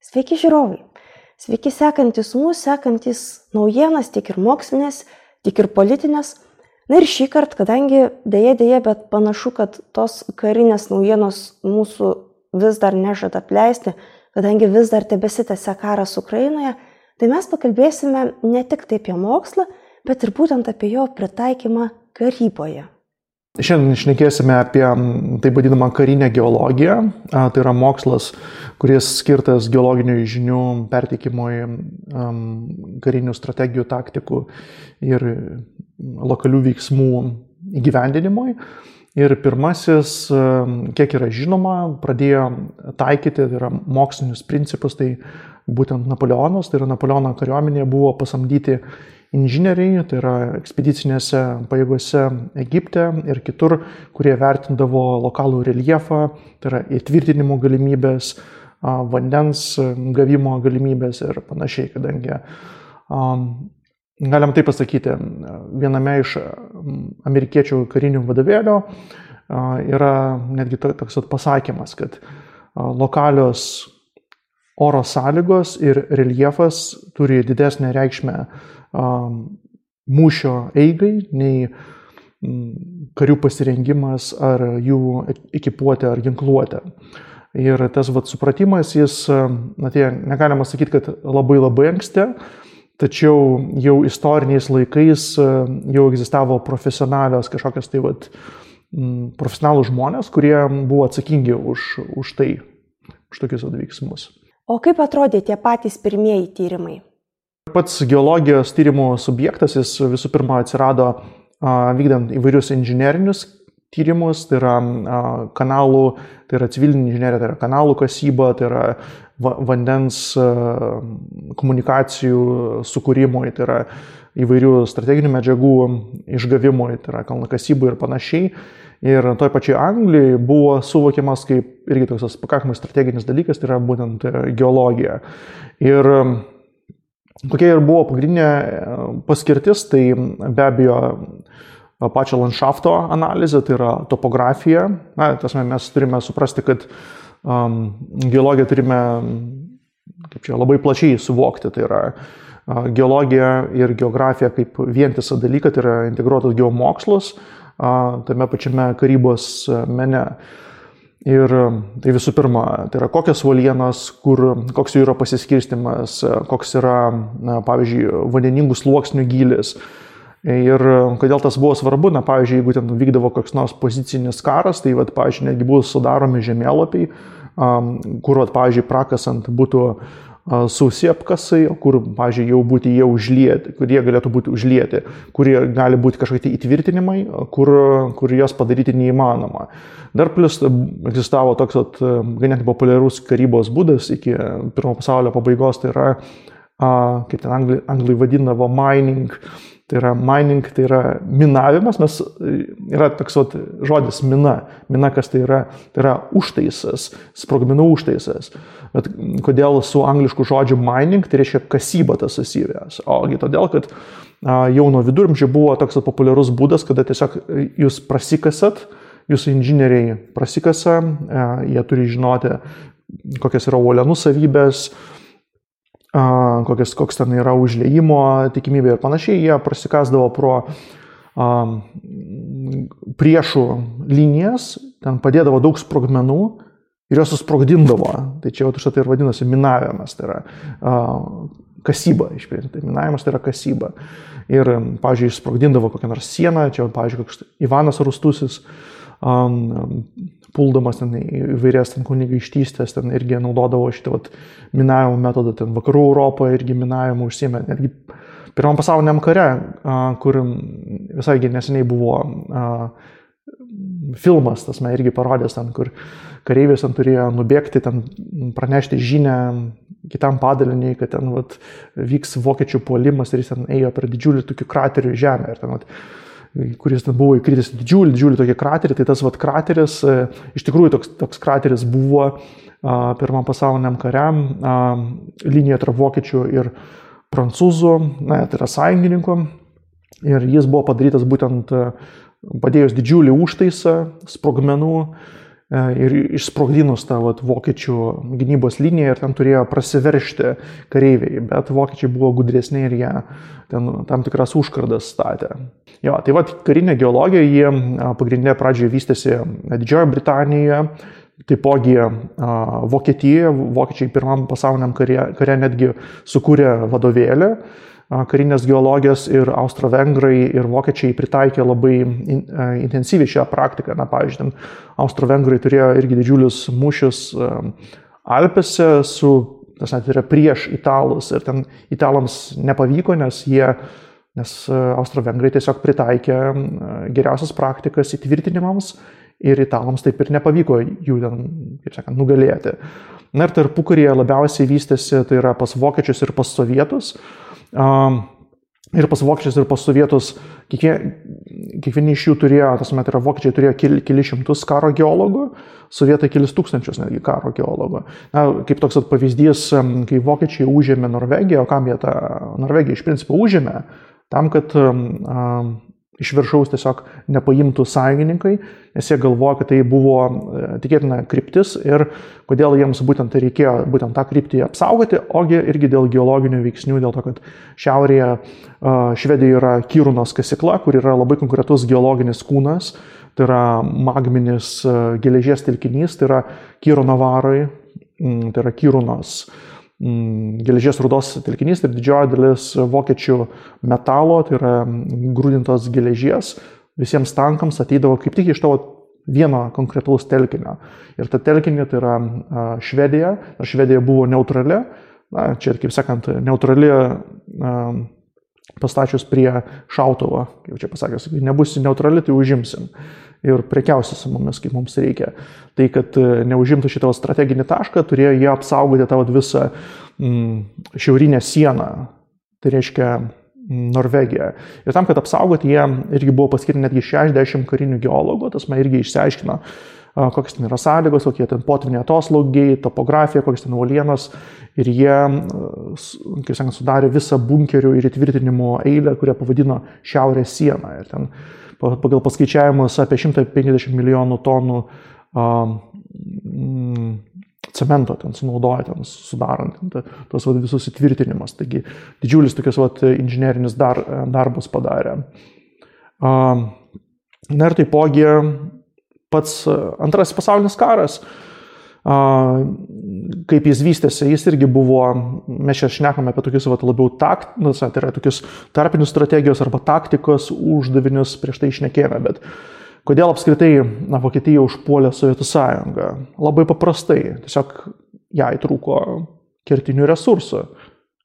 Sveiki žiūrovai, sveiki sekantis mūsų, sekantis naujienas, tiek ir mokslinės, tiek ir politinės. Na ir šį kartą, kadangi dėja, bet panašu, kad tos karinės naujienos mūsų vis dar nežada apleisti, kadangi vis dar tebesitęsia karas Ukrainoje, tai mes pakalbėsime ne tik taip apie mokslą, bet ir būtent apie jo pritaikymą karyboje. Šiandien šnekėsime apie taip vadinamą karinę geologiją. Tai yra mokslas, kuris skirtas geologinių žinių perteikimui, karinių strategijų, taktikų ir lokalių veiksmų įgyvendinimui. Ir pirmasis, kiek yra žinoma, pradėjo taikyti, tai yra mokslinius principus, tai būtent Napoleonas, tai yra Napoleono kariuomenėje buvo pasamdyti inžinieriai, tai yra ekspedicinėse pajėgose Egipte ir kitur, kurie vertindavo lokalų reljefą, tai yra įtvirtinimo galimybės, vandens gavimo galimybės ir panašiai, kadangi galim taip pasakyti, viename iš amerikiečių karinių vadovėlių yra netgi toks pasakymas, kad lokalios oro sąlygos ir reljefas turi didesnę reikšmę mūšio eigai, nei karių pasirengimas ar jų ekipuotė ar ginkluotė. Ir tas supratimas, jis, negalima sakyti, kad labai anksti, tačiau jau istoriniais laikais jau egzistavo profesionalios kažkokios profesionalų žmonės, kurie buvo atsakingi už tokius veiksmus. O kaip atrodė tie patys pirmieji tyrimai? Pats geologijos tyrimų subjektas, jis visų pirma atsirado vykdant įvairius inžinerinius tyrimus, tai yra kanalų, tai yra civilinė inžinerija, tai yra kanalų kasyba, tai yra vandens komunikacijų sukūrimui, tai yra įvairių strateginių medžiagų išgavimui, tai yra kalnakasybui ir panašiai. Ir toj pačiai Anglijoje buvo suvokiamas kaip irgi toks pakankamai strateginis dalykas, tai yra būtent geologija. Ir kokia ir buvo pagrindinė paskirtis, tai be abejo pačio landšafto analizė, tai yra topografija. Mes turime suprasti, kad geologiją turime labai plačiai suvokti. Tai yra geologija ir geografija kaip vientisą dalyką, tai yra integruotas geomokslus tame pačiame karybos mene. Ir tai visų pirma, tai yra kokios uolienos, koks jų yra pasiskirstimas, koks yra, pavyzdžiui, vandeningų sluoksnių gylis. Ir kodėl tas buvo svarbu, pavyzdžiui, jeigu ten vykdavo koks nors pozicinis karas, tai, pavyzdžiui, netgi buvo sudaromi žemėlapiai, kur, pavyzdžiui, prakasant būtų sausi apkasai, kur, pavyzdžiui, jau būti jie užlieti, kur jie galėtų būti užlieti, kurie gali būti kažkokie įtvirtinimai, kur jos padaryti neįmanoma. Dar plus egzistavo toks ganėtinai populiarus karybos būdas iki pirmo pasaulio pabaigos, tai yra, kaip ten anglai vadindavo, mining. Tai yra mining, tai yra minavimas, yra toks žodis mina. Mina, kas tai yra užtaisas, sprogmenų užtaisas. Bet kodėl su anglišku žodžiu mining, tai reiškia kasyba tas susivės. Ogi todėl, kad jau nuo viduramžių buvo toks populiarus būdas, kada tiesiog jūs prasikasat, jūsų inžinieriai prasikasa, jie turi žinoti, kokios yra uolienų savybės, koks ten yra užliejimo tikimybė ir panašiai, jie prasikasdavo pro priešų linijas, ten padėdavo daug sprogmenų ir jos susprogdindavo. Tai čia tai ir vadinasi minavimas, tai yra kasyba. Tai minavimas tai yra kasyba. Ir, pavyzdžiui, sprogdindavo kokią nors sieną, čia, pavyzdžiui, koks Ivanas Rūstusis, puldamas ten įvairias kunigaikštystės, ten irgi naudodavo šitą minavimo metodą, ten vakarų Europoje irgi minavimo užsiėmė. Netgi Pirmam pasauliniam kare, kur visai neseniai buvo filmas, irgi parodęs ten, kur kareivis ten turėjo nubėgti, ten pranešti žinią kitam padaliniui, kad ten vyks vokiečių puolimas ir jis ten ėjo per didžiulį tokį kraterį žemę. Ir ten, kuris ten buvo įkritęs didžiulį tokį kraterį, tai tas krateris, iš tikrųjų toks krateris buvo Pirmam pasauliniam kariam, linija tarp vokiečių ir prancūzų, tai yra sąjungininkų, ir jis buvo padarytas būtent padėjus didžiulį užtaisą sprogmenų ir išsprogdinus tą vokiečių gynybos liniją ir ten turėjo prasiveržti kareiviai, bet vokiečiai buvo gudresni ir jie ten tam tikras užkardas statė. Jo, tai karinė geologija, jie pagrindinė pradžioje vystėsi Didžiojoje Britanijoje, taipogi Vokietijoje, vokiečiai pirmam pasauliniam kare netgi sukūrė vadovėlį karinės geologijos ir austro-vengrai ir vokiečiai pritaikė labai intensyviai šią praktiką. Na, pavyzdžiui, austro-vengrai turėjo irgi didžiulius mūšius Alpėse tai yra prieš italus ir ten italams nepavyko, nes austro-vengrai tiesiog pritaikė geriausias praktikas įtvirtinimams ir italams taip ir nepavyko jų ten, kaip sakant, nugalėti. Na ir tarpukaryje labiausiai vystėsi, tai yra pas vokiečius ir pas sovietus. Ir pas vokiečius ir pas sovietus kiekvieni iš jų turėjo, tai yra vokiečiai turėjo kelis šimtus karo geologų, sovietai kelis tūkstančius netgi karo geologų. Na, kaip toks pavyzdys, kai vokiečiai užėmė Norvegiją, o kam jie tą Norvegiją iš principo užėmė, tam, kad iš viršaus tiesiog nepaimtų sąjungininkai, nes jie galvoja, kad tai buvo tikėtina kryptis ir kodėl jiems būtent reikėjo būtent tą kryptį apsaugoti, ogi irgi dėl geologinių veiksnių, dėl to, kad šiaurėje Švedijoje yra Kirunos kasykla, kur yra labai konkretus geologinis kūnas, tai yra magminis geležies telkinys, tai yra Kiruno varai, tai yra Kirunos geležies rūdos telkinys ir didžioji dalis vokiečių metalo, tai yra grūdintos geležies, visiems tankams ateidavo kaip tik iš to vieno konkretaus telkinio. Ir ta telkinė tai yra Švedija, nors Švedija buvo neutrali, na, čia, kaip sakant, neutrali pastačius prie šautuvo, kaip čia pasakęs, nebus neutrali, tai užimsim ir prekiausi su mumis, kaip mums reikia. Tai, kad neužimtų šitą strateginį tašką, turėjo jie apsaugoti tą visą šiaurinę sieną, tai reiškia Norvegiją. Ir tam, kad apsaugoti, jie irgi buvo paskirti netgi 60 karinių geologų, tas man irgi išsiaiškino, kokios ten yra sąlygos, kokie ten potviniai atoslūgiai, topografija, kokios ten uolienos. Ir jie, kaip sakant, sudarė visą bunkerių ir įtvirtinimo eilę, kurią pavadino Šiaurės sieną. Ir ten pagal paskaičiavimus apie 150 milijonų tonų cemento ten sunaudoja, ten sudarant tos visus įtvirtinimus. Taigi didžiulis tokias inžinerinis darbas padarė. Na ir taipogi pats Antrasis pasaulinis karas, kaip jis vystėsi, jis irgi buvo, mes čia šnekame apie tokius labiau tai yra tokius tarpinius strategijos arba taktikos uždavinius prieš tai šnekėjome, bet kodėl apskritai Vokietija užpuolė Sovietų sąjungą? Labai paprastai, tiesiog jai trūko kertinių resursų,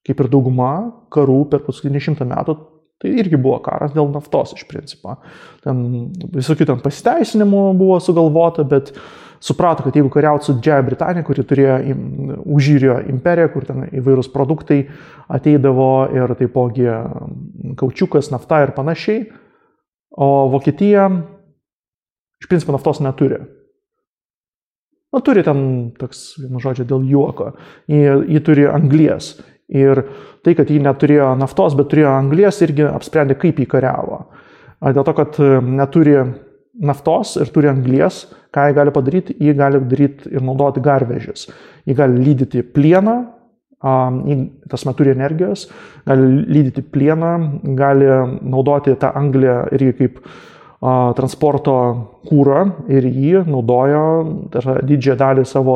kaip ir dauguma karų per paskutinį 100 metų, tai irgi buvo karas dėl naftos iš principo. Ten visokių ten pasiteisinimų buvo sugalvota, bet suprato, kad jeigu kariauti su Didžiąja Britanija, kuri turėjo užjūrio imperiją, kur ten įvairūs produktai ateidavo ir taipogi kaučiukas, nafta ir panašiai, o Vokietija iš principo naftos neturi. Na, turi ten, toks, vienu žodžiu, dėl juoko. Ji turi anglies. Ir tai, kad ji neturėjo naftos, bet turėjo anglies, irgi apsprendė, kaip jį kariavo. Dėl to, kad neturi naftos ir turi anglies, ką jį gali padaryti? Jį gali daryti ir naudoti garvežius. Jį gali lydyti plieną, tas turi energijos, gali lydyti plieną, gali naudoti tą anglį irgi kaip transporto kūrą ir jį naudojo didžiąją dalį savo,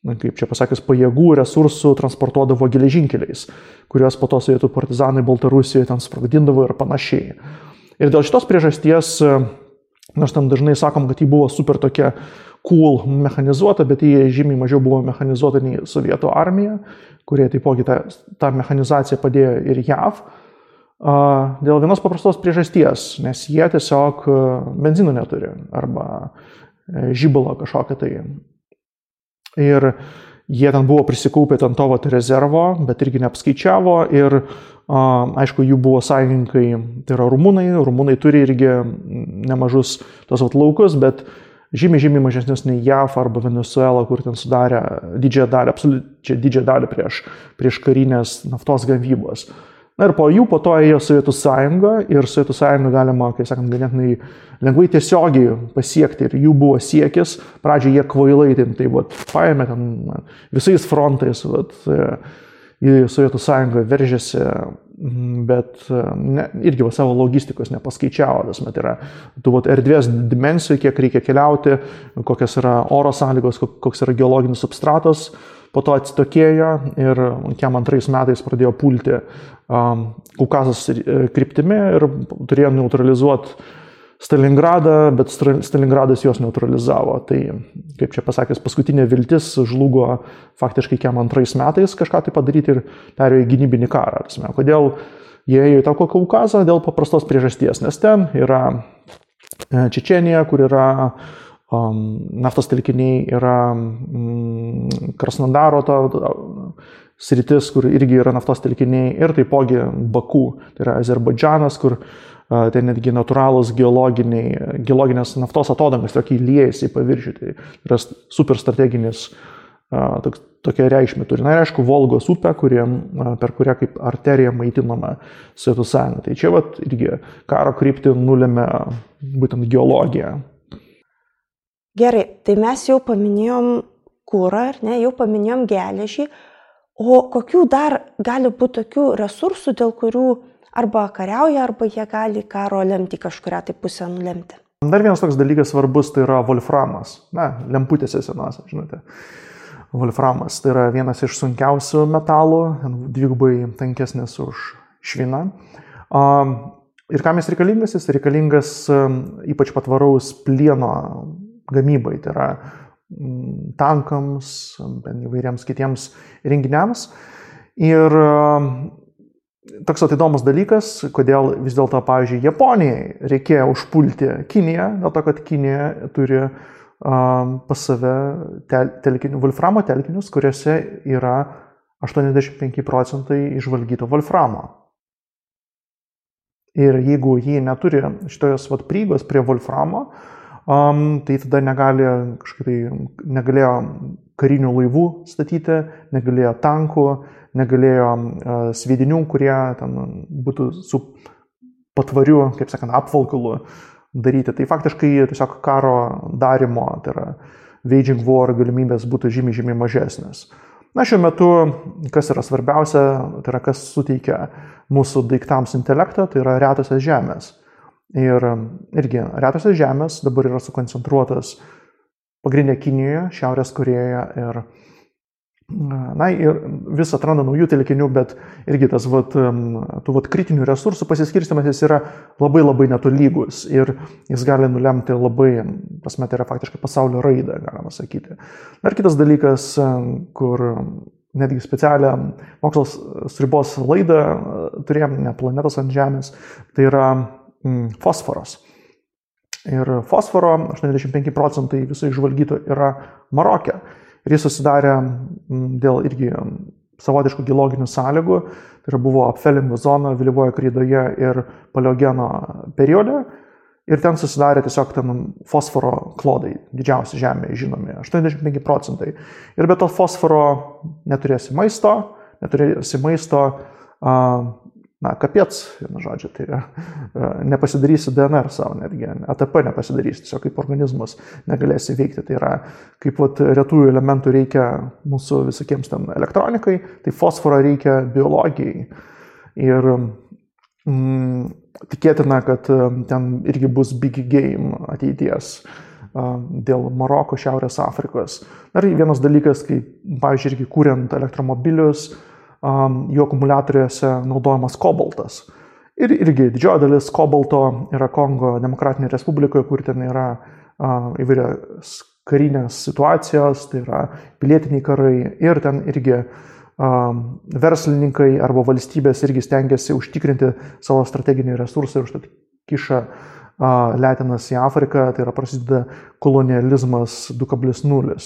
kaip čia pasakius, pajėgų, resursų transportuodavo geležinkeliais, kuriuos po to sovietų partizanai Baltarusijoje ten sprogdindavo ir panašiai. Ir dėl šitos priežasties, nors ten dažnai sakom, kad ji buvo super tokia cool mechanizuota, bet ji žymiai mažiau buvo mechanizuota nei sovietų armija, kurie taipogi tą mechanizaciją padėjo ir JAV. Dėl vienos paprastos priežasties, nes jie tiesiog benzino neturi arba žibalo kažkokią tai. Ir jie ten buvo prisikaupę ten to rezervo, bet irgi neapskaičiavo ir aišku, jų buvo sąjungininkai, tai yra rumunai turi irgi nemažus tos laukus, bet žymiai mažesnius nei JAV arba Venezuela, kur ten sudarė didžiąją dalį prieš karinės naftos gavybos. Na ir po jų po to ėjo Sovietų sąjunga ir Sovietų sąjungą galima, kaip sakant, ganėtinai lengvai tiesiogiai pasiekti ir jų buvo siekis. Pradžioje jie kvailai tai paėmė ten visais frontais į Sovietų sąjungą veržėsi, bet irgi savo logistikos nepaskaičiavo. Tai yra tų erdvės dimensijų, kiek reikia keliauti, kokios yra oro sąlygos, koks yra geologinis substratas. Po to atsitokėjo ir 1992 metais pradėjo pulti Kaukazos kryptimi ir turėjo neutralizuoti Stalingradą, bet Stalingradas juos neutralizavo. Tai, kaip čia pasakęs, paskutinė viltis žlugo faktiškai 1992 metais kažką tai padaryti ir perėjo į gynybinį karą. Kodėl jie ėjo į tą Kaukazą? Dėl paprastos priežasties, nes ten yra Čečėnija, kur yra naftos telkiniai, yra Krasnodaro sritis, kur irgi yra naftos telkiniai, ir taipogi Baku, tai yra Azerbaidžanas, kur tai netgi natūralūs geologinės naftos atodangas, tokie liejasi į paviršių, tai yra super strateginis tokia reikšmė turi. Na ir aišku, Volgos upė, per kurią kaip arterija maitinama Sovietų sąjunga. Tai čia irgi karo kryptį nulėmė būtent geologija. Gerai, tai mes jau paminėjom kurą, jau paminėjom geležį, o kokių dar gali būti tokių resursų, dėl kurių arba kariauja, arba jie gali karo lemti kažkurią tai pusę nulemti? Dar vienas toks dalykas svarbus, tai yra wolframas. Lemputėse senose, žinote. Wolframas tai yra vienas iš sunkiausių metalų, dvigubai tankesnis už šviną. Ir kam jis reikalingas? Jis reikalingas ypač patvaraus plieno gamybai, tai yra tankams, įvairiems kitiems renginiams. Ir toks įdomus dalykas, kodėl vis dėlto, pavyzdžiui, Japonijai reikėjo užpulti Kiniją, dėl to, kad Kinija turi pas save wolframo telkinius, kuriuose yra 85% išvalgyto wolframo. Ir jeigu jie neturi šitos prieigos prie wolframo, tai tada negalėjo karinių laivų statyti, negalėjo tankų, negalėjo sviedinių, kurie ten būtų su patvariu, kaip sakant, apvalkalu daryti. Tai faktiškai tiesiog karo darimo, tai yra waging war galimybės būtų žymiai mažesnės. Na, šiuo metu, kas yra svarbiausia, tai yra kas suteikia mūsų daiktams intelektą, tai yra retosios žemės. Ir irgi retosios žemės dabar yra sukoncentruotas pagrindinė Kinijoje, Šiaurės Korėjoje ir vis atranda naujų telkinių, bet irgi tas tų kritinių resursų pasiskirstymas jis yra labai netolygus ir jis gali nulemti labai, tai yra faktiškai pasaulio raidą, galima sakyti. Dar kitas dalykas, kur netgi specialią mokslos sribos laidą turėjom, ne planetos ant Žemės, tai yra fosforas. Ir fosforo 85% viso išvalgyto yra Maroke. Ir jis susidarė dėl irgi savotiškų geologinių sąlygų. Tai yra buvo apfelingo zona vėlyvoje kreidoje ir paleogeno periode. Ir ten susidarė tiesiog fosforo klodai, didžiausi Žemėje žinomi, 85%. Ir be to fosforo neturėsi maisto, kapiec, vienu žodžiu, tai nepasidarysi DNR savo netgi, ATP nepasidarysi, tiesiog kaip organizmas negalėsi veikti. Tai yra, kaip retųjų elementų reikia mūsų visokiems ten elektronikai, tai fosforo reikia biologijai. Ir tikėtina, kad ten irgi bus big game ateities dėl Maroko, Šiaurės Afrikos. Dar vienas dalykas, kai, pavyzdžiui, irgi kuriant elektromobilius, jų akumuliatoriuose naudojamas kobaltas. Ir irgi didžioji dalis kobalto yra Kongo Demokratinėje Respublikoje, kur ten yra įvairios karinės situacijos, tai yra pilietiniai karai ir ten irgi verslininkai arba valstybės irgi stengiasi užtikrinti savo strateginį resursą ir užtat kiša letinas į Afriką, tai yra prasideda kolonializmas 2.0.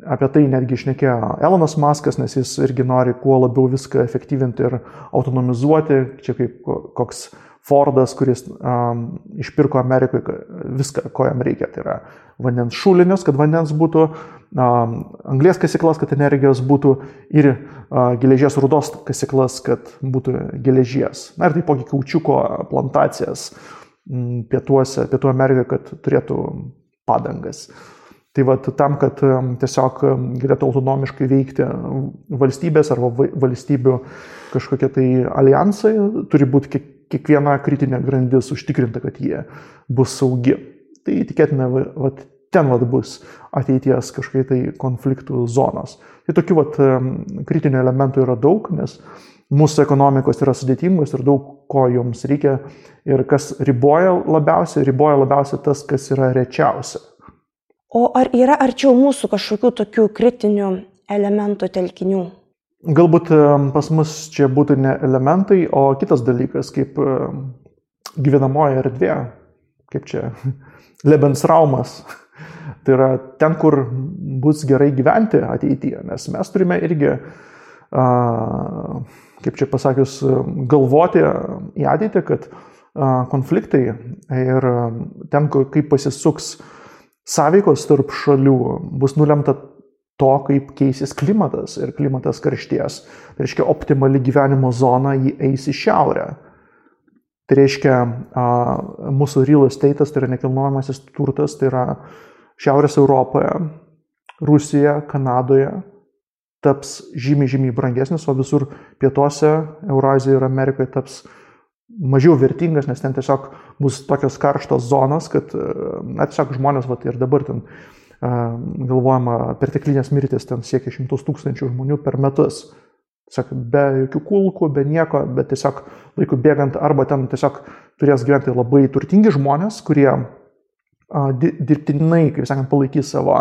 Apie tai netgi šnekėjo Elonas Muskas, nes jis irgi nori kuo labiau viską efektyvinti ir autonomizuoti, čia kaip koks Fordas, kuris išpirko Amerikoje viską, ko jam reikia. Tai yra vandens šulinius, kad vandens būtų, anglies kasyklas, kad energijos būtų ir geležies rudos kasyklas, kad būtų geležies. Na ir taipogi kaučiuko plantacijas Pietų Amerikoje, kad turėtų padangas. Tai va, tam, kad tiesiog galėtų autonomiškai veikti valstybės arba valstybių kažkokie tai alijansai, turi būti kiekviena kritinė grandis užtikrinta, kad jie bus saugi. Tai tikėtina, ten bus ateities kažkokie tai konfliktų zonos. Tai tokių kritinių elementų yra daug, nes mūsų ekonomikos yra sudėtingos ir daug ko joms reikia. Ir kas riboja labiausiai tas, kas yra rečiausia. O ar yra arčiau mūsų kažkokių tokių kritinių elementų telkinių? Galbūt pas mus čia būtų ne elementai, o kitas dalykas, kaip gyvenamoji erdvė, kaip čia Lebensraumas. Tai yra ten, kur bus gerai gyventi ateityje, nes mes turime irgi, kaip čia pasakius, galvoti į ateitį, kad konfliktai ir ten, kaip pasisuks sąveikos tarp šalių, bus nulemta to, kaip keisis klimatas ir klimatas karšties. Tai reiškia, optimali gyvenimo zona jį eis į šiaurę. Tai reiškia, mūsų real estate'as, tai yra nekilnojamasis turtas, tai yra Šiaurės Europoje, Rusijoje, Kanadoje taps žymiai brangesnis, o visur pietuose, Eurazijoje ir Amerikoje taps mažiau vertingas, nes ten tiesiog bus tokios karštos zonos, kad tiesiog žmonės ir dabar ten galvojama perteklinės mirtis ten siekia 100 000 žmonių per metus. Tiesiog be jokių kulkų, be nieko, bet tiesiog laiku bėgant arba ten tiesiog turės gyventi labai turtingi žmonės, kurie dirbtinai, kaip sakant, palaikys savo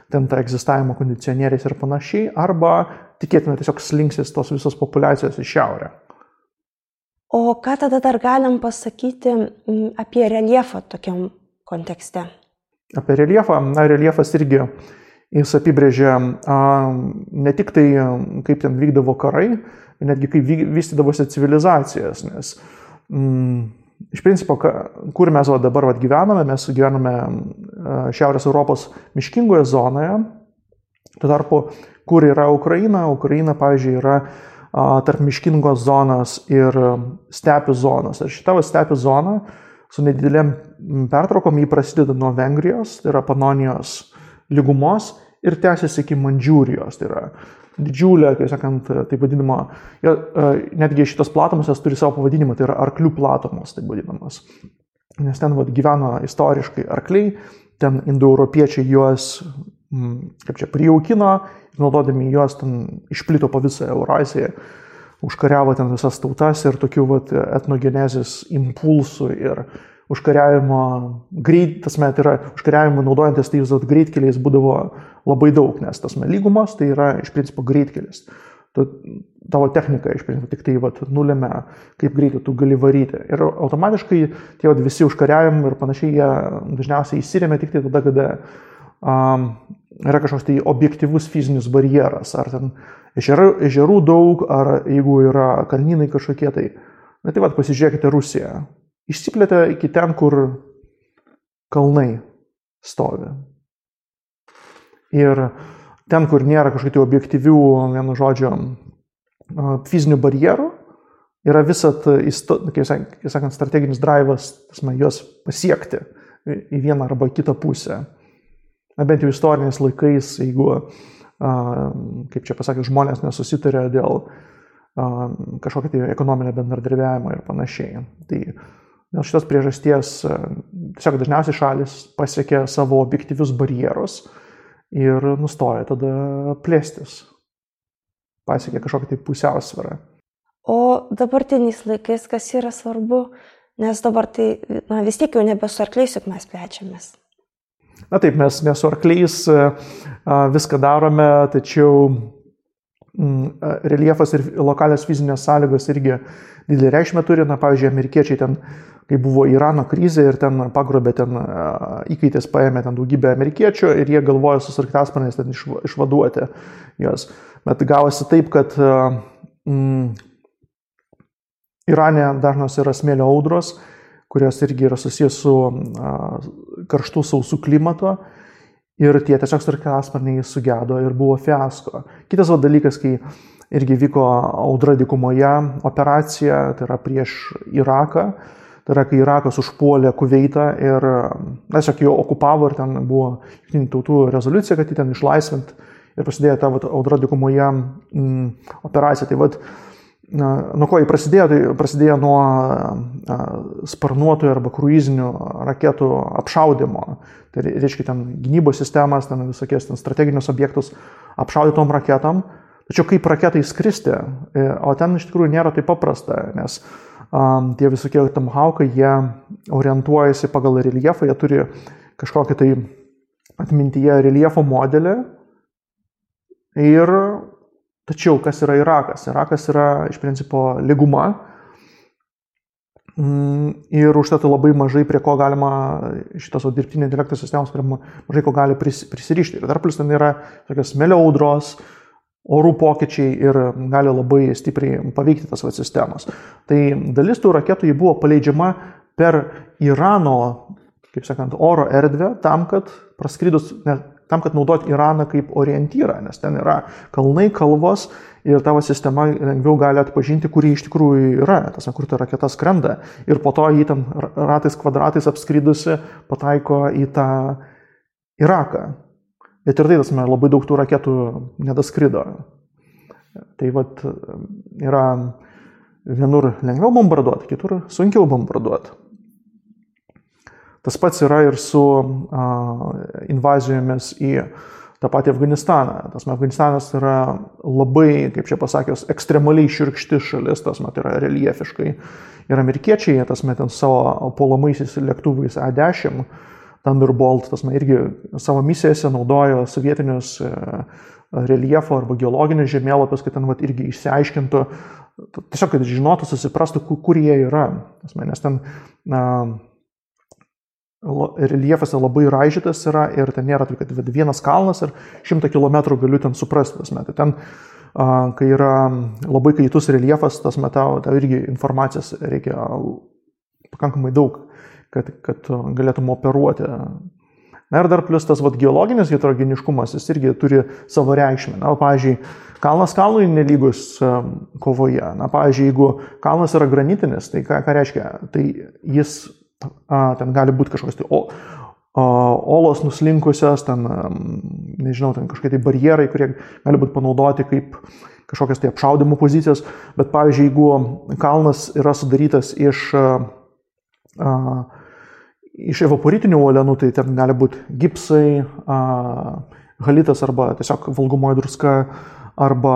ten tą egzistavimo kondicionieriais ir panašiai, arba tikėtina tiesiog slinksis tos visos populiacijos į šiaurę. O ką tada dar galim pasakyti apie reljefą tokiam kontekste? Apie reljefą, reljefas irgi jis apibrėžia ne tik tai, kaip ten vykdavo karai, netgi kaip vystydavosi civilizacijas, nes iš principo, kur mes dabar gyvename, mes gyvename Šiaurės Europos miškingoje zonoje, tuo tarpu, kur yra Ukraina, pavyzdžiui, yra tarp miškingos zonos ir stepių zonos. Ir šita stepių zona su nedidelėm pertraukom jį prasideda nuo Vengrijos, tai yra Panonijos lygumos ir tęsiasi iki Mandžiūrijos, tai yra didžiulė, kaip sakant, taip vadinama, netgi šitos platumos turi savo pavadinimą, tai yra arklių platumos, taip vadinamas. Nes ten gyveno istoriškai arkliai, ten indoeuropiečiai juos, kaip čia, prijaukino, naudodami juos ten išplito po visą Euraziją, užkariavo ten visas tautas ir tokių etnogenezės impulsų ir užkariavimo užkariavimo naudojantis tais greitkeliais būdavo labai daug, nes tas lygumos tai yra iš principo greitkelis. Tavo technika iš principo tik tai nulemia, kaip greitai tu gali varyti. Ir automatiškai tie visi užkariavimai ir panašiai jie dažniausiai įsiremia tik tai tada, kada yra kažkoks tai objektyvus fizinis barjeras, ar ten ežerų daug, ar jeigu yra kalnynai kažkokie tai. Na tai pasižiūrėkite Rusiją. Išsiplėtė iki ten, kur kalnai stovi. Ir ten, kur nėra kažkokių objektyvių, vienu žodžiu, fizinių barjerų, yra visat, kaip sakant, strateginis drivas, juos pasiekti į vieną arba kitą pusę. Na, bent jau istoriniais laikais, jeigu, kaip čia pasakė, žmonės nesusitarė dėl kažkokio tai ekonominio bendradarbiavimo ir panašiai. Tai dėl šitos priežasties tiesiog dažniausiai šalis pasiekia savo objektyvius barjerus ir nustoja tada plėstis. Pasiekia kažkokią tai pusiausvyrą. O dabartiniais laikais kas yra svarbu, nes dabar tai vis tiek jau nebe su arkliais, juk mes plečiamės. Na taip, mes ne su arkliais viską darome, tačiau reljefas ir lokalios fizinės sąlygos irgi didelį reikšmę turi. Na, pavyzdžiui, amerikiečiai ten, kai buvo Irano krizė ir ten pagrobė, ten įkaitais paėmė ten daugybę amerikiečių ir jie galvojo su sraigtasparniais ten išvaduoti juos. Bet gavosi taip, kad Irane dažnos yra smėlio audros, kurios irgi yra susijęs su karštų sausų klimato. Ir tie tiesiog sraigtasparniai sugedo ir buvo fiasko. Kitas dalykas, kai irgi vyko audra dykumoje operacija, tai yra prieš Iraką. Tai yra, kai Irakas užpuolė Kuveitą ir tiesiog jo okupavo ir ten buvo Jungtinių tautų rezoliucija, kad jį ten išlaisvint ir prasidėjo ta audra dykumoje operacija. Tai nuo ko jį prasidėjo? Tai prasidėjo nuo sparnuotojų arba kruizinių raketų apšaudimo. Tai reiškia ten gynybos sistemas, ten visokies ten strateginius objektus apšaudytom raketom. Tačiau kaip raketai skristi, o ten iš tikrųjų nėra taip paprasta, nes tie visokie tomahawkai, jie orientuojasi pagal reljefą, jie turi kažkokį tai atmintyje reljefo modelį. Tačiau kas yra Irakas? Irakas yra iš principo lyguma ir užtat labai mažai prie ko galima šitos dirbtinio intelekto sistemos, prie mažai ko gali prisirišti. Ir dar plus ten yra tokios smėlio audros, orų pokyčiai ir gali labai stipriai paveikti tas sistemas. Tai dalis tų raketų buvo paleidžiama per Irano, kaip sakant, oro erdvę tam, kad naudoti Iraną kaip orientyrą, nes ten yra kalnai, kalvos ir tavo sistema lengviau gali atpažinti, kur jį iš tikrųjų yra, kur ta raketa skrenda. Ir po to jį ten ratais kvadratais apskridusi pataiko į tą Iraką. Bet ir tai labai daug tų raketų nedaskrido. Tai yra vienur lengviau bombarduoti, kitur sunkiau bombarduoti. Tas pats yra ir su invazijomis į tą patį Afganistaną. Afganistanas yra labai, kaip čia pasakius, ekstremaliai šiurkšti šalis, tai yra reljefiškai. Ir amerikiečiai, ten savo puolamaisiais lėktuvais A-10, Thunderbolt, irgi savo misijose naudojo sovietinius reljefo arba geologinius žemėlapius, kad ten irgi išsiaiškintų, tiesiog, kad žinotų, susiprastų, kur jie yra. Nes ten reljefas labai raižytas yra ir ten nėra taip, kad vienas kalnas ir 100 km galiu ten suprasti. Tai ten, kai yra labai kaitus reljefas, tau irgi informacijos reikia pakankamai daug, kad galėtum operuoti. Na ir dar plus tas geologinis heterogeniškumas, jis irgi turi savo reikšmę. Na, pavyzdžiui, kalnas kalnui nelygus kovoje. Na, pavyzdžiui, jeigu kalnas yra granitinis, tai ką reiškia? Tai jis, ten gali būti kažkokios tai olos nuslinkusios, ten, nežinau, ten kažkokie tai barjerai, kurie gali būti panaudoti kaip kažkokios tai apšaudimo pozicijos. Bet, pavyzdžiui, jeigu kalnas yra sudarytas iš evaporitinių uolienų, tai ten gali būti gipsai, halitas arba tiesiog valgomoji druska, arba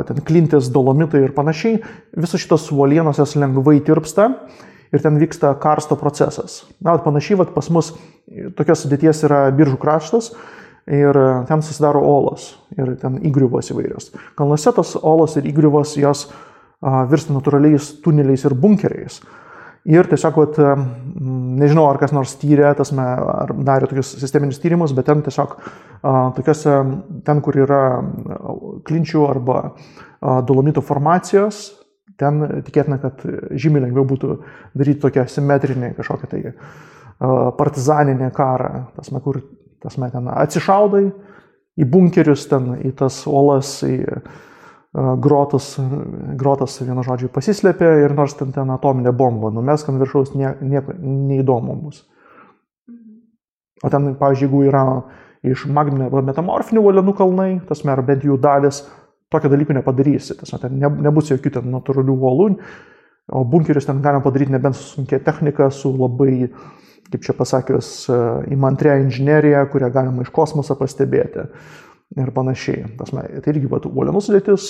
ten klintis, dolomitai ir panašiai. Visos šitos uolienos jas lengvai tirpsta ir ten vyksta karsto procesas. Na, panašiai pas mus tokios sudėties yra Biržų kraštas ir ten susidaro olos ir ten įgriuvos įvairios. Kalnuose tos olos ir įgriuvos jos virsta natūraliais tuneliais ir bunkeriais. Ir tiesiog, nežinau, ar kas nors tyrė, ar darė tokius sisteminius tyrimus, bet ten tiesiog tokiuose, ten, kur yra klinčių arba dolomito formacijos, ten tikėtina, kad žymiai lengviau būtų daryti tokią simetrinį kažkokią tai partizaninį karą, kur ten atsišaudai į bunkerius, ten į tas olas, į grotas vienu žodžiu pasislėpė ir nors ten atominė bomba numesk ant viršaus, nieko neįdomu bus. O ten, pavyzdžiui, jeigu yra iš magminio arba metamorfinių uolienų kalnai, ar bent jų dalis, tokio dalyko nepadarysi. Ten nebus jokių ten natūralių uolų, o bunkerius ten galima padaryti nebent su sunkia technika, su labai, kaip čia pasakius, įmantrią inžineriją, kurią galima iš kosmoso pastebėti. Ir panašiai. Tai irgi uolienų sudėtis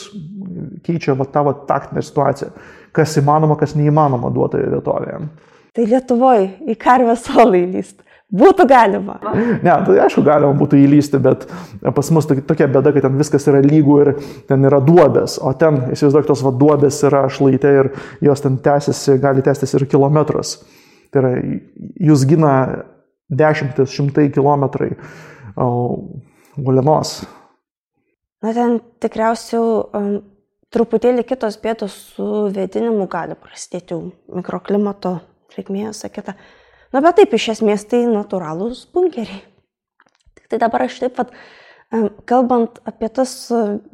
keičia tą taktinę situaciją, kas įmanoma, kas neįmanoma duotoje vietovėje. Tai Lietuvoje į Karvės olą įlysti būtų galima? Ne, tai aišku, galima būtų įlysti, bet pas mus tokia bėda, kad ten viskas yra lygų ir ten yra duobės, o ten, įsivaizduok, tos duobės yra šlaite ir jos ten gali tęstis ir kilometras. Tai yra, jūs gina 10-100 kilometrai uolienos. Na, ten tikriausiai truputėlį kitos bėdos su vėdinimu gali prasidėti mikroklimato reikmė, sakyta. Bet taip, iš esmės tai natūralūs bunkeriai. Tik tai dabar aš taip, kalbant apie tas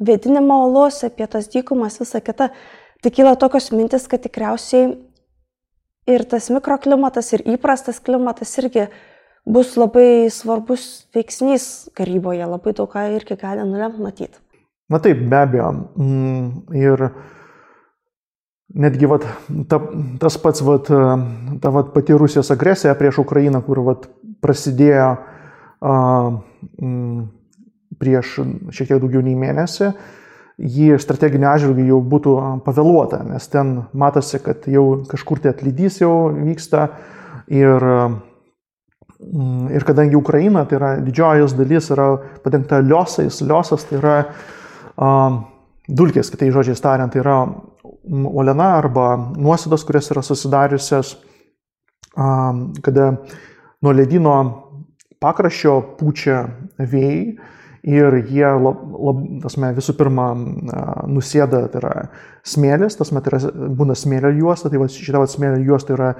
vėdinimo olos, apie tas dykumas, visą kitą, tai kyla tokios mintis, kad tikriausiai ir tas mikroklimatas, ir įprastas klimatas irgi bus labai svarbus veiksnys karyboje, labai daug ką irgi gali nulemti matyti. Na taip, be abejo. Ir netgi tas pats ta pati Rusijos agresija prieš Ukrainą, kur prasidėjo prieš šiek tiek daugiau nei mėnesį, jį strateginį atžvilgį jau būtų pavėluota, nes ten matosi, kad jau kažkur tai atlydys jau vyksta ir kadangi Ukraina, tai yra didžioji jos dalis, yra padengta liosais, liosas tai yra dulkės, kitais žodžiais tariant, tai yra uoliena arba nuosėdos, kurios yra susidariusios, kada nuo ledyno pakraščio pučia vėjai ir jie visų pirma nusėda, tai yra smėlis, tai yra, būna smėlio juosta, tai šita smėlio juosta yra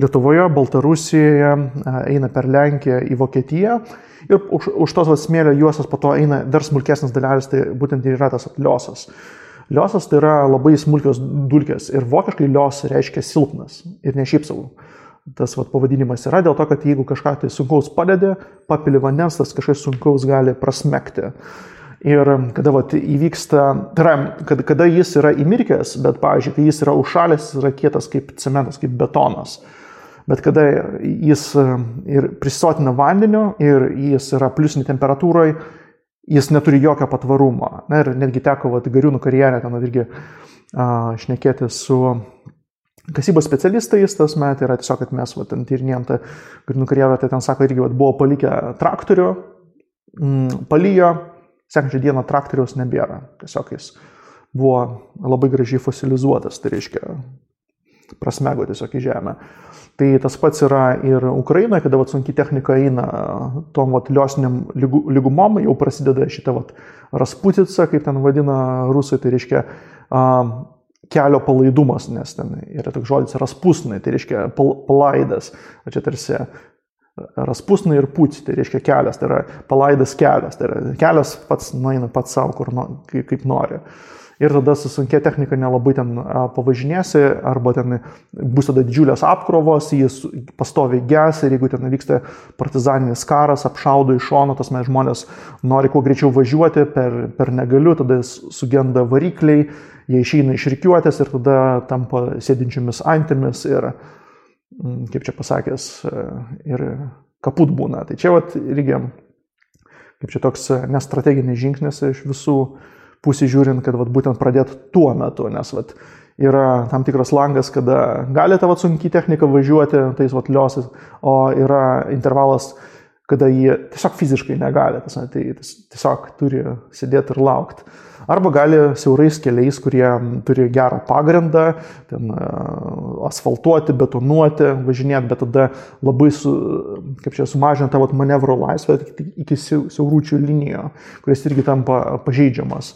Lietuvoje, Baltarusijoje, eina per Lenkiją į Vokietiją ir už tos smėlio juostas po to eina dar smulkesnis dalelės, tai būtent yra tas liosas. Liosas tai yra labai smulkios dulkės ir vokiškai lios reiškia silpnas ir ne šiaip savo. Tas pavadinimas yra dėl to, kad jeigu kažką tai sunkaus padedi, papili vandens, tas kažkas sunkaus gali prasmegti. Ir kada įvyksta, tai yra, kada jis yra įmirkęs, bet, pavyzdžiui, kai jis yra užšalęs, jis yra kietas kaip cementas, kaip betonas. Bet kada jis ir prisisotina vandeniu ir jis yra pliusinė temperatūroje, jis neturi jokio patvarumo. Na, ir netgi teko Gariūnų karjere ten irgi šnekėti su kasybos specialistais, tas metai yra tiesiog, kad mes ten tyrinėjom tą Gariūnų karjerą, tai ten sako, irgi buvo palikę traktorių, palijo, sekančią dieną traktoriaus nebėra. Tiesiog jis buvo labai gražiai fosilizuotas, tai reiškia prasmego tiesiog į žemę. Tai tas pats yra ir Ukrainoje, kada sunki technika eina tom liosiniam lygumom, jau prasideda šitą rasputica, kaip ten vadina rusai, tai reiškia kelio palaidumas, nes ten yra toks žodis raspusnai, tai reiškia palaidas, o čia tarsi raspusnai ir puci, tai reiškia kelias, tai yra palaidas kelias, tai yra kelias pats nueina pats savo, kaip nori. Ir tada su sunkia technika nelabai ten pavažinėsi, arba ten bus tada didžiulės apkrovos, jis pastoviai ges ir jeigu ten vyksta partizaninis karas, apšaudo iš šono, tas mes žmonės nori kuo greičiau važiuoti, per negaliu, tada sugenda varikliai, jie išeina iš rikiuotės ir tada tampa sėdinčiomis antimis ir, kaip čia pasakęs, ir kaput būna. Tai čia irgi, kaip čia toks nestrateginis žingsnis iš visų pusį žiūrint, kad būtent pradėti tuo metu, nes yra tam tikras langas, kada gali ta sunki technika važiuoti tais liosais, o yra intervalas, kada jie tiesiog fiziškai negali, tai tiesiog turi sėdėti ir laukti. Arba gali siaurais keliais, kurie turi gerą pagrindą, ten asfaltuoti, betonuoti, važinėti, bet tada labai sumažinti tą manevro laisvę iki siauručių linijo, kuris irgi tampa pažeidžiamas.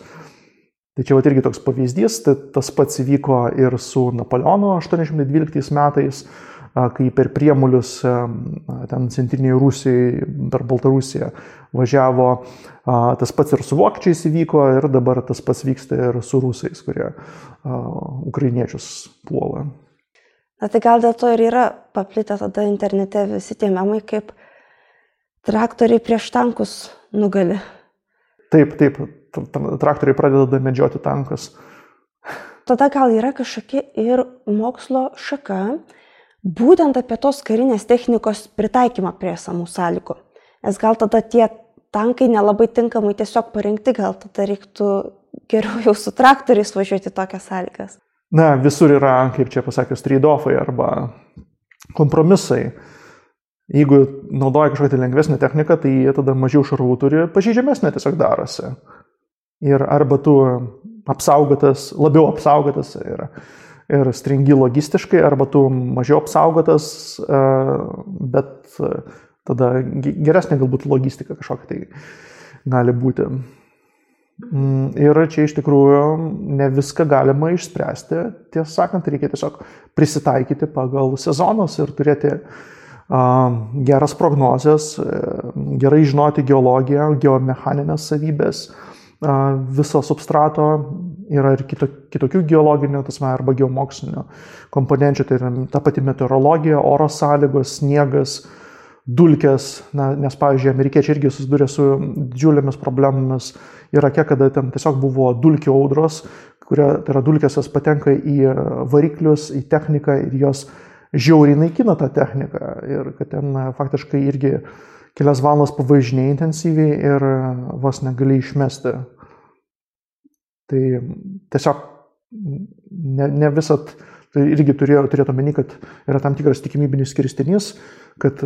Tai čia irgi toks pavyzdys, tai tas pats įvyko ir su Napoleonu 812 metais, kai per Priemulius ten centrinėje Rusijoje, per Baltarusiją važiavo, tas pats ir su vokiečiais įvyko ir dabar tas pats vyksta ir su rusais, kurie ukrainiečius puola. Na tai gal dėl to ir yra paplitę tada internete visi tie memai, kaip traktoriai prieš tankus nugali. Taip, traktoriai pradeda medžioti tankus. Tada gal yra kažkokia ir mokslo šaka, būtent apie tos karinės technikos pritaikymą prie esamų sąlygų. Nes gal tada tie tankai nelabai tinkamai tiesiog parengti, gal tada reiktų geriau jau su traktoriais važiuoti tokias sąlygas. Na, visur yra, kaip čia pasakius, trade-offai arba kompromisai. Jeigu naudoja kažkokią lengvesnę techniką, tai jie tada mažiau šarvų turi, pažeidžiamesnė tiesiog darosi. Ir arba tu labiau apsaugotas ir stringi logistiškai, arba tu mažiau apsaugotas, bet tada geresnė galbūt logistika kažkokia tai gali būti. Ir čia iš tikrųjų ne viską galima išspręsti. Tiesą sakant, reikia tiesiog prisitaikyti pagal sezonus ir turėti geras prognozes, gerai žinoti geologiją, geomechaninės savybės, viso substrato. Yra ir kitokių geologinių, arba geomokslinių komponenčių, tai yra ta pati meteorologija, oro sąlygos, sniegas, dulkės, nes, pavyzdžiui, amerikiečiai irgi susidūrė su didžiulėmis problemomis Irake, kada ten tiesiog buvo dulkių audros, tai yra dulkės jos patenka į variklius, į techniką ir jos žiauriai naikina tą techniką ir kad ten faktiškai irgi kelias valandas pavažinėja intensyviai ir vos negali išmesti. Tai tiesiog ne visat, tai irgi turėtų omeny, kad yra tam tikras tikimybinis skirstinys, kad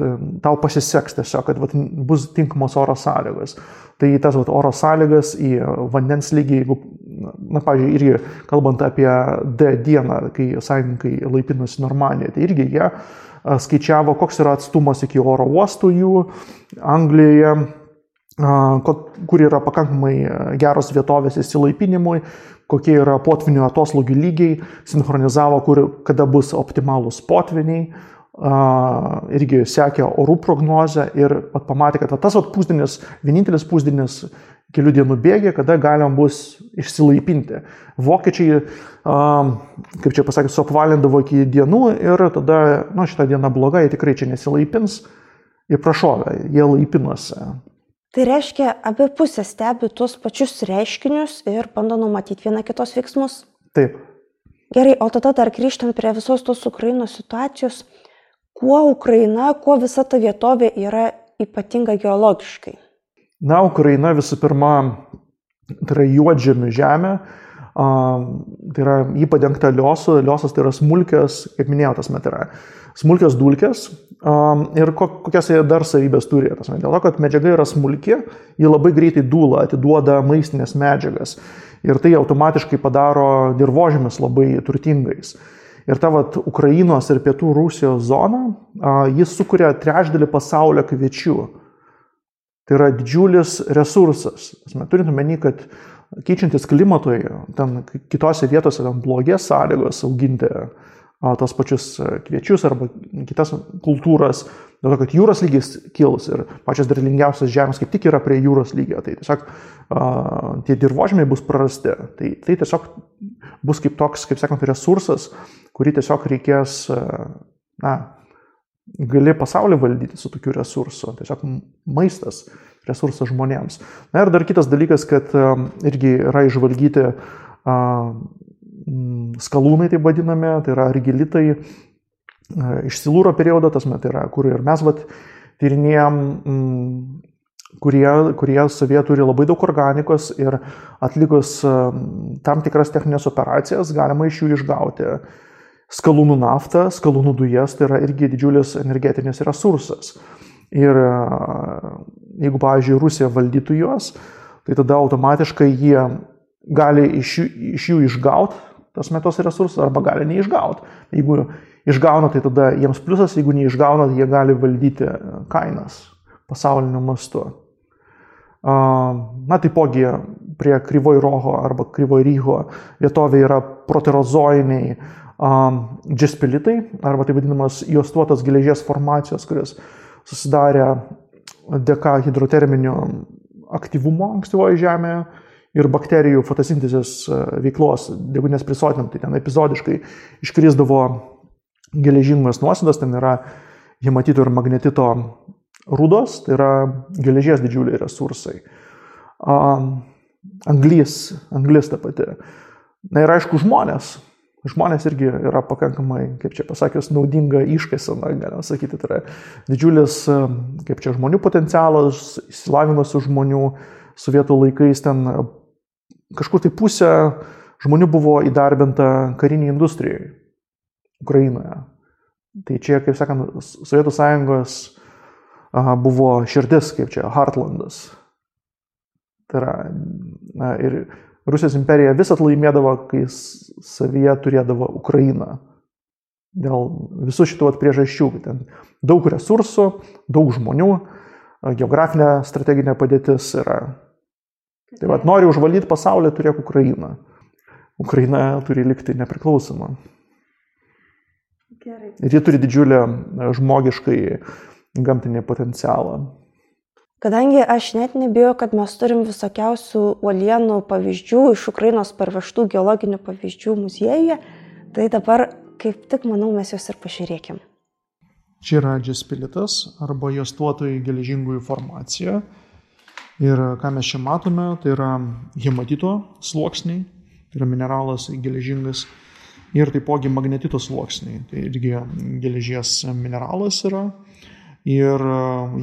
tau pasiseks tiesiog, kad bus tinkamos oro sąlygos. Tai tas oro sąlygas į vandens lygį, jeigu, pavyzdžiui, irgi kalbant apie D dieną, kai sąjungininkai laipinosi Normandijoje, tai irgi jie skaičiavo, koks yra atstumas iki oro uostų jų Anglijoje, kur yra pakankamai geros vietovės įsilaipinimui, kokie yra potvinių atoslūgių lygiai, sinchronizavo, kada bus optimalūs potviniai, irgi sekė orų prognozę ir pamatė, kad tas pusdienis, vienintelis pusdienis kelių dienų bėgė, kada galima bus išsilaipinti. Vokiečiai, kaip čia pasakė, suapvalindavo iki dienų ir tada, šitą dieną bloga, jie tikrai čia nesilaipins ir prašovė, jie laipinosi. Tai reiškia, abi pusės stebi tuos pačius reiškinius ir bando numatyti vieną kitos veiksmus? Taip. Gerai, o tada dar grįžtant prie visos tos Ukrainos situacijos, kuo Ukraina, kuo visa ta vietovė yra ypatinga geologiškai? Ukraina visų pirma, tai yra juodžemių žemė, tai yra jį padengta liosu, liosas tai yra smulkios, kaip minėjau, tas met yra smulkios dulkės ir kokias jie dar savybės turi. Dėl to, kad medžiaga yra smulki, ji labai greitai dūla, atiduoda maistinės medžiagas ir tai automatiškai padaro dirvožemius labai turtingais. Ir ta Ukrainos ir pietų Rusijos zona, jis sukuria trečdalį pasaulio kviečių. Tai yra didžiulis resursas. Turint omeny, kad keičiantis klimatui, ten kitose vietose ten blogės sąlygos auginti tos pačius kviečius arba kitas kultūras, dėl to, kad jūros lygis kils ir pačios derlingiausios žemės kaip tik yra prie jūros lygio, tai tiesiog tie dirvožemiai bus prarasti. Tai tiesiog bus kaip toks, kaip sakant, resursas, kurį tiesiog reikės, gali pasaulį valdyti su tokiu resursu, tiesiog maistas, resursas žmonėms. Ir dar kitas dalykas, kad irgi yra išvalgyti skalūnai, taip vadinami, tai yra argilitai iš Silūro periodo, tai yra, kur ir mes tyrinėjom, kurie savyje turi labai daug organikos ir atlikus tam tikras techninės operacijas galima iš jų išgauti skalūnų naftą, skalūnų dujas, tai yra irgi didžiulis energetinis resursas. Ir jeigu, pavyzdžiui, Rusija valdytų juos, tai tada automatiškai jie gali iš jų išgauti tos resursus arba gali neišgauti. Jeigu išgauna, tai tada jiems pliusas, jeigu neišgauna, tai jie gali valdyti kainas pasauliniu mastu. Taipogi prie Kryvoj Roho arba Kryvoj Ryho vietovė yra proterozoiniai džespilitai, arba tai vadinamas juostuotos geležies formacijos, kurios susidarė dėka hidroterminio aktyvumo ankstyvoje žemėje ir bakterijų fotosintezės veiklos, deguonies prisotinant, tai ten epizodiškai iškrisdavo geležingos nuosėdos, ten yra hematito ir magnetito rūdos, tai yra geležies didžiuliai resursai. Anglis ta pati. Ir aišku, žmonės irgi yra pakankamai, kaip čia pasakius, naudinga iškaisena, galima sakyti, tai yra didžiulis, kaip čia, žmonių potencialas, išsilavinimas žmonių. Sovietų laikais ten kažkur tai pusė žmonių buvo įdarbinta kariniai industrijai Ukrainoje. Tai čia, kaip sakant, Sovietų sąjungos buvo širdis, kaip čia, Heartlandas. Tai yra, ir Rusijos imperija visat laimėdavo, kai savyje turėdavo Ukrainą. Dėl visų šitų priežasčių. Ten daug resursų, daug žmonių, geografinė strateginė padėtis yra. Tai vat, nori užvaldyti pasaulį, turėk Ukrainą. Ukraina turi likti nepriklausoma. Gerai. Ir ji turi didžiulę žmogiškai gamtinį potencialą. Kadangi aš net nebijau, kad mes turim visokiausių uolienų pavyzdžių, iš Ukrainos parvežtų geologinių pavyzdžių muziejuje, tai dabar kaip tik, manau, mes juos ir pažiūrėkim. Čia yra džespilitas arba juostuotojai geležingųjų formacija. Ir ką mes čia matome, tai yra hematito sluoksniai, tai yra mineralas geležingas, ir taipogi magnetito sluoksniai, tai irgi geležies mineralas yra. Ir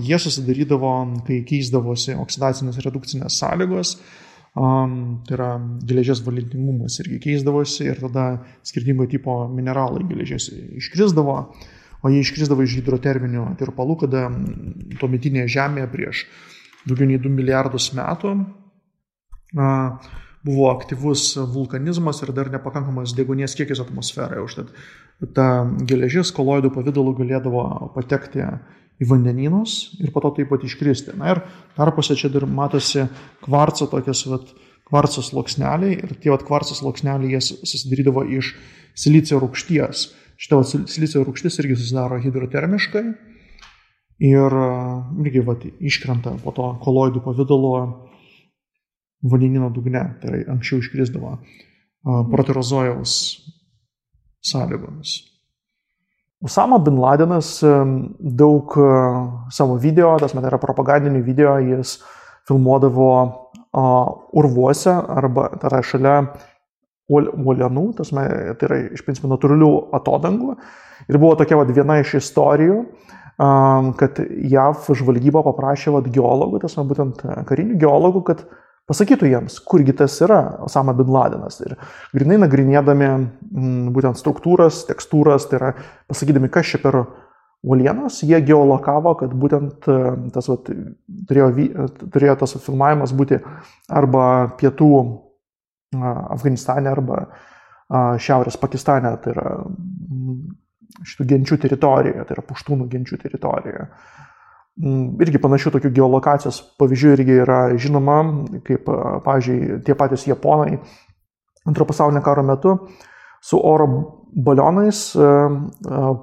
jie susidarydavo, kai keisdavosi oksidacinės redukcinės sąlygos, tai yra geležies valentingumas irgi keisdavosi ir tada skirtingo tipo mineralai geležies iškrisdavo, o jie iškrisdavo iš hidroterminių tirpalų, kada tuometinėje Žemėje prieš daugiau nei 2 milijardus metų buvo aktyvus vulkanizmas ir dar nepakankamas deguonies kiekis atmosferoje. Užtat ta geležis koloidų pavidalu galėdavo patekti į vandenynus ir po to taip pat iškristi. Na ir tarpuose čia dar matosi kvarco tokias kvarco sluoksneliai ir tie kvarco sluoksneliai jie susidarydavo iš silicio rūgšties. Šita silicio rūgštis irgi susidaro hidrotermiškai. Ir irgi iškrenta po to koloidų pavidalo vandenyno dugne, tai yra anksčiau iškrisdavo proterozojaus sąlygomis. Osama bin Ladenas daug savo video, tas met yra propagandinių video, jis filmuodavo urvuose arba tai yra šalia uolienų, tai yra iš principo natūralių atodangų. Ir buvo tokia viena iš istorijų, kad JAV žvalgyba paprašė geologų, būtent karinių geologų, kad pasakytų jiems, kurgi tas yra Osama bin Ladenas. Ir grinai nagrinėdami būtent struktūras, tekstūras, tai yra pasakydami, kas čia per uolienos, jie geolokavo, kad būtent tas turėjo tas filmavimas būti arba pietų Afganistane, arba šiaurės Pakistane, tai yra šitų genčių teritorijoje, tai yra puštūnų genčių teritorijoje. Irgi panašių tokių geolokacijos pavyzdžių irgi yra žinoma, kaip, pavyzdžiui, tie patys japonai Antrojo pasaulinio karo metu su oro balionais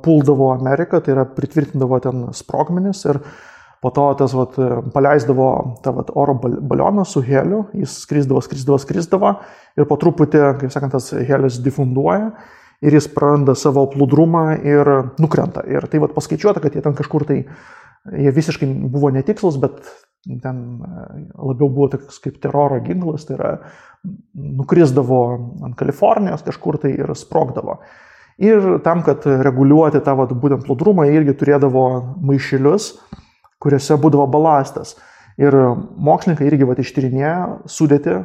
puldavo Ameriką, tai yra pritvirtindavo ten sprogmenis ir po to tas paleisdavo tą oro balioną su heliu, jis skrisdavo ir po truputį, kaip sakant, tas helis difunduoja ir jis praranda savo plūdrumą ir nukrenta. Ir tai paskaičiuota, kad jie ten kažkur tai, jie visiškai buvo netikslus, bet ten labiau buvo toks kaip teroro ginklas, tai yra nukrisdavo ant Kalifornijos kažkur tai ir sprogdavo. Ir tam, kad reguliuoti tą būtent plūdrumą, jie irgi turėdavo maišelius, kuriuose būdavo balastas. Ir mokslininkai irgi ištyrinėjo sudėtį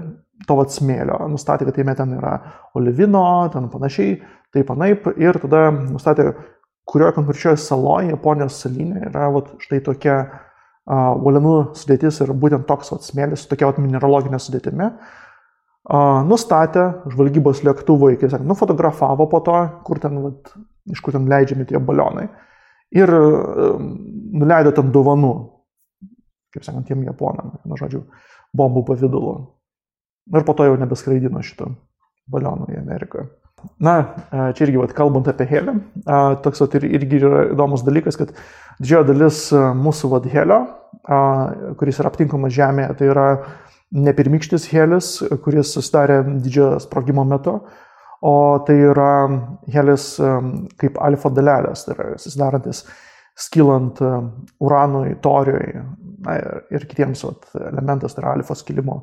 to smėlio, nustatė, kad jame ten yra olivino, ten panašiai, taip anaip, ir tada nustatė, kurioje konkrečioje saloje, Japonijos salyne, yra štai tokia uolienų sudėtis ir būtent toks smėlis su tokia mineraloginė sudėtimi. Nustatė žvalgybos lėktuvai, kaip sakant, nufotografavo po to, iš kur ten leidžiami tie balionai ir nuleido ten dovanų, kaip sakant, tiem japonam, bombų pavidalu. Ir po to jau nebeskraidino šito baliono į Ameriką. Na, čia irgi, kalbant apie helį, toks irgi yra įdomus dalykas, kad didžioji dalis mūsų helio, kuris yra aptinkamas Žemėje, tai yra ne pirmykštis helis, kuris susidarė didžiojo sprogimo metu, o tai yra helis kaip alfa dalelės, tai yra susidarantis skilant uranui, toriui ir kitiems elementas, tai yra alfa skilimo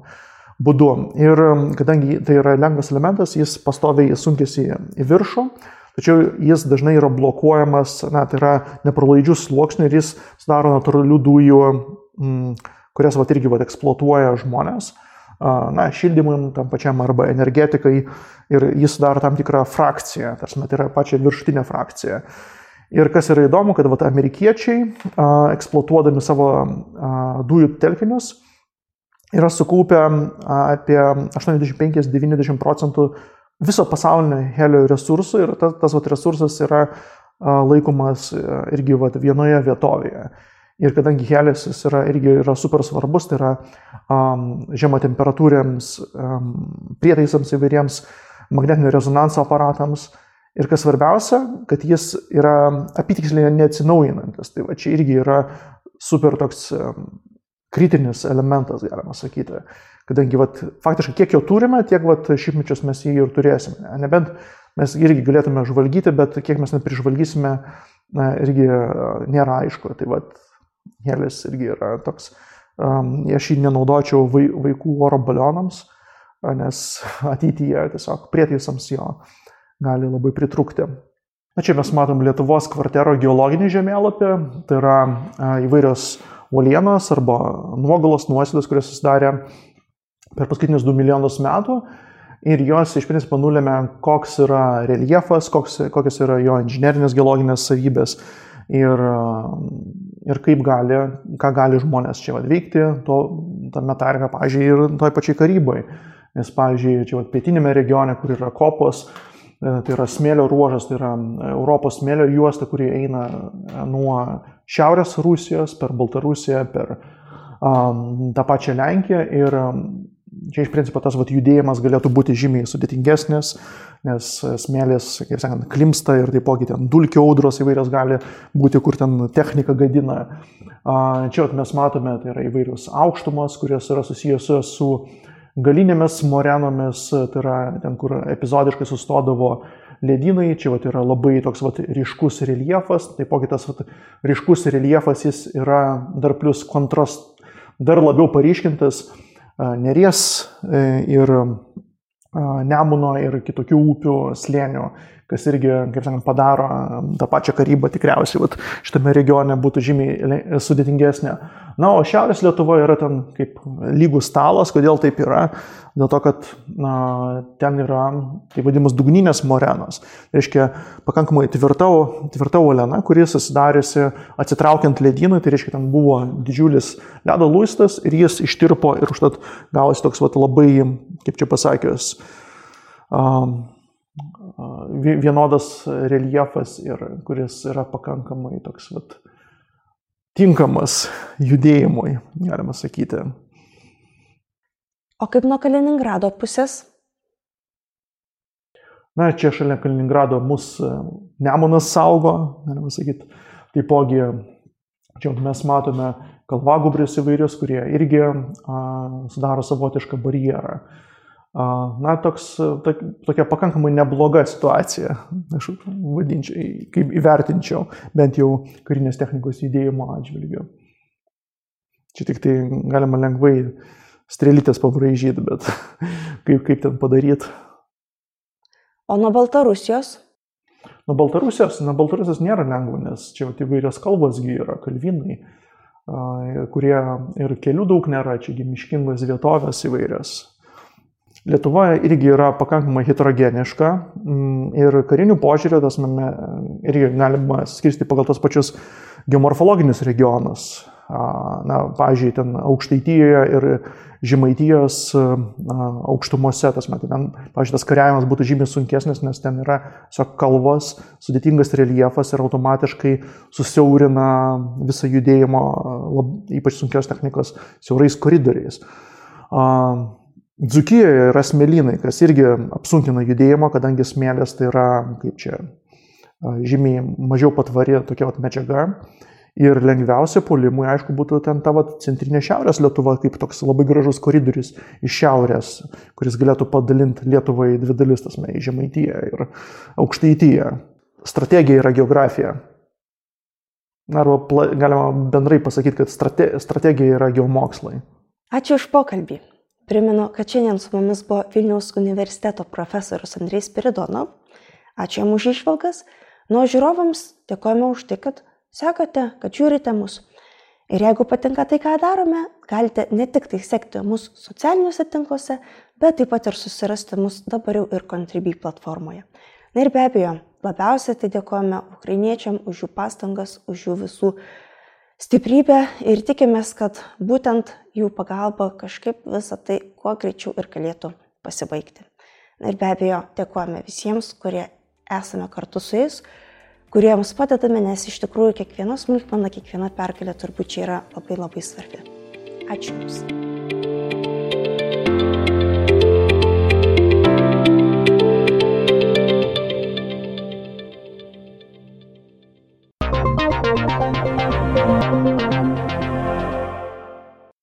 būdu. Ir kadangi tai yra lengvas elementas, jis pastoviai sunkiasi į viršų, tačiau jis dažnai yra blokuojamas, tai yra nepralaidžių sluoksnių ir jis sudaro natūralių dujų, kurias irgi eksploatuoja žmonės, šildymui tam pačiam arba energetikai, ir jis sudaro tam tikrą frakciją, tai yra pačią viršutinę frakciją. Ir kas yra įdomu, kad amerikiečiai, eksploatuodami savo dujų telkinius, yra sukaupę apie 85-90% viso pasaulinio helio resursų ir tas resursas yra laikomas irgi vienoje vietovėje. Ir kadangi helis irgi yra super svarbus, tai yra žemo temperatūriams prietaisams įvairiems magnetinio rezonanso aparatams. Ir kas svarbiausia, kad jis yra apytiksliai neatsinaujinantis. Tai va čia irgi yra super toks kritinis elementas, galima sakyti. Kadangi faktiškai kiek jo turime, tiek šimtmečius mes jį ir turėsime. Nebent mes irgi galėtume žvalgyti, bet kiek mes neprižvalgysime, irgi nėra aišku. Tai helis irgi yra toks, aš jį nenaudočiau vaikų oro balionams, nes ateityje tiesiog prietaisams jo gali labai pritrūkti. Čia mes matom Lietuvos kvartero geologinį žemėlapį, tai yra įvairios uolienos arba nuogalos nuosėdos, kurios susidarė per paskutinius 2 milijonus metų ir jos iš principo nulėmė, koks yra reljefas, kokios yra jo inžinerinės geologinės savybės ir ką gali žmonės čia veikti, tame tarpe, pavyzdžiui, ir toj pačiai Karybai. Nes, pavyzdžiui, čia pietinėme regione, kur yra kopos, tai yra smėlio ruožas, tai yra Europos smėlio juosta, kuri eina nuo šiaurės Rusijos per Baltarusiją, per tą pačią Lenkiją ir čia iš principo tas judėjimas galėtų būti žymiai sudėtingesnis, nes smėlis, kaip sakant, klimsta ir taipogi ten dulkių audros įvairios gali būti, kur ten technika gadina. Čia mes matome, tai yra įvairios aukštumos, kurios yra susijusios su galinėmis morenomis, tai yra ten, kur epizodiškai sustodavo ledynai, čia yra labai toks ryškus reljefas, taipogi tas ryškus reljefas jis yra dar plus dar labiau paryškintas Neries ir Nemuno ir kitokių upių slėnių, kas irgi, kaip sakant, padaro tą pačią Karybą tikriausiai šitame regione būtų žymiai sudėtingesnė. Na, o Šiaurės Lietuva yra ten kaip lygus stalas. Kodėl taip yra? Dėl to, kad ten yra, tai vadinamas, dugninės morenos. Tai reiškia, pakankamai tvirta uoliena, kuri susidariusi atsitraukiant ledynui, tai reiškia, ten buvo didžiulis ledo luistas ir jis ištirpo ir užtat gavosi toks labai, kaip čia pasakius, vienodas reljefas ir kuris yra pakankamai toks tinkamas judėjimui, galima sakyti. O kaip nuo Kaliningrado pusės? Na, čia šalia Kaliningrado mus Nemunas saugo, galima sakyti. Taipogi, čia mes matome kalvagūbrius įvairius, kurie irgi sudaro savotišką barjerą. Na, tokia pakankamai nebloga situacija, aš vadinčiau, kaip įvertinčiau, bent jau karinės technikos judėjimo atžvilgiu. Čia tik tai galima lengvai strėlytės pabraižyti, bet kaip ten padaryti. O nuo Baltarusijos? Nuo Baltarusijos nėra lengva, nes čia įvairios kalbosgi yra, kalvinai, kurie ir kelių daug nėra, čiagi miškingos vietovės įvairios. Lietuvoje irgi yra pakankamai heterogeniška ir karinių požiūrių irgi galima skirstyti pagal tos pačius geomorfologinius regionus. Na, pavyzdžiui, ten Aukštaitijoje ir Žemaitijos aukštumose, pavyzdžiui, tas kariavimas būtų žymiai sunkesnis, nes ten yra kalvos, sudėtingas reljefas ir automatiškai susiaurina visą judėjimo, ypač sunkios technikos, siaurais koridoriais. Dzūkijoje yra smėlynai, kas irgi apsunkina judėjimą, kadangi smėlis tai yra, žymiai mažiau patvari tokia medžiaga. Ir lengviausia puolimui, aišku, būtų ten ta centrinė Šiaurės Lietuva, kaip toks labai gražus koridorius iš šiaurės, kuris galėtų padalinti Lietuvą į dvi dalis, į Žemaitiją ir Aukštaitiją. Strategija yra geografija. Arba galima bendrai pasakyti, kad strategija yra geomokslai. Ačiū už pokalbį. Primenu, kad šiandien su mumis buvo Vilniaus universiteto profesorius Andrejus Spiridonov. Ačiū jam už išvalgas. Nuo žiūrovams dėkojame už tai, kad sekate, kad žiūrite mus. Ir jeigu patinka tai, ką darome, galite ne tik tai sekti mus socialiniuose tinkluose, bet taip pat ir susirasti mus dabar jau ir Contribui platformoje. Na ir be abejo, labiausiai tai dėkojame ukrainiečiam už jų pastangas, už jų visų stiprybę ir tikimės, kad būtent jų pagalba kažkaip visą tai kuo greičiau ir galėtų pasibaigti. Na ir be abejo, dėkojame visiems, kurie esame kartu su jais, kuriems padedame, nes iš tikrųjų kiekviena smulkmena, kiekviena pergalė turbūt čia yra labai labai svarbi. Ačiū Jums.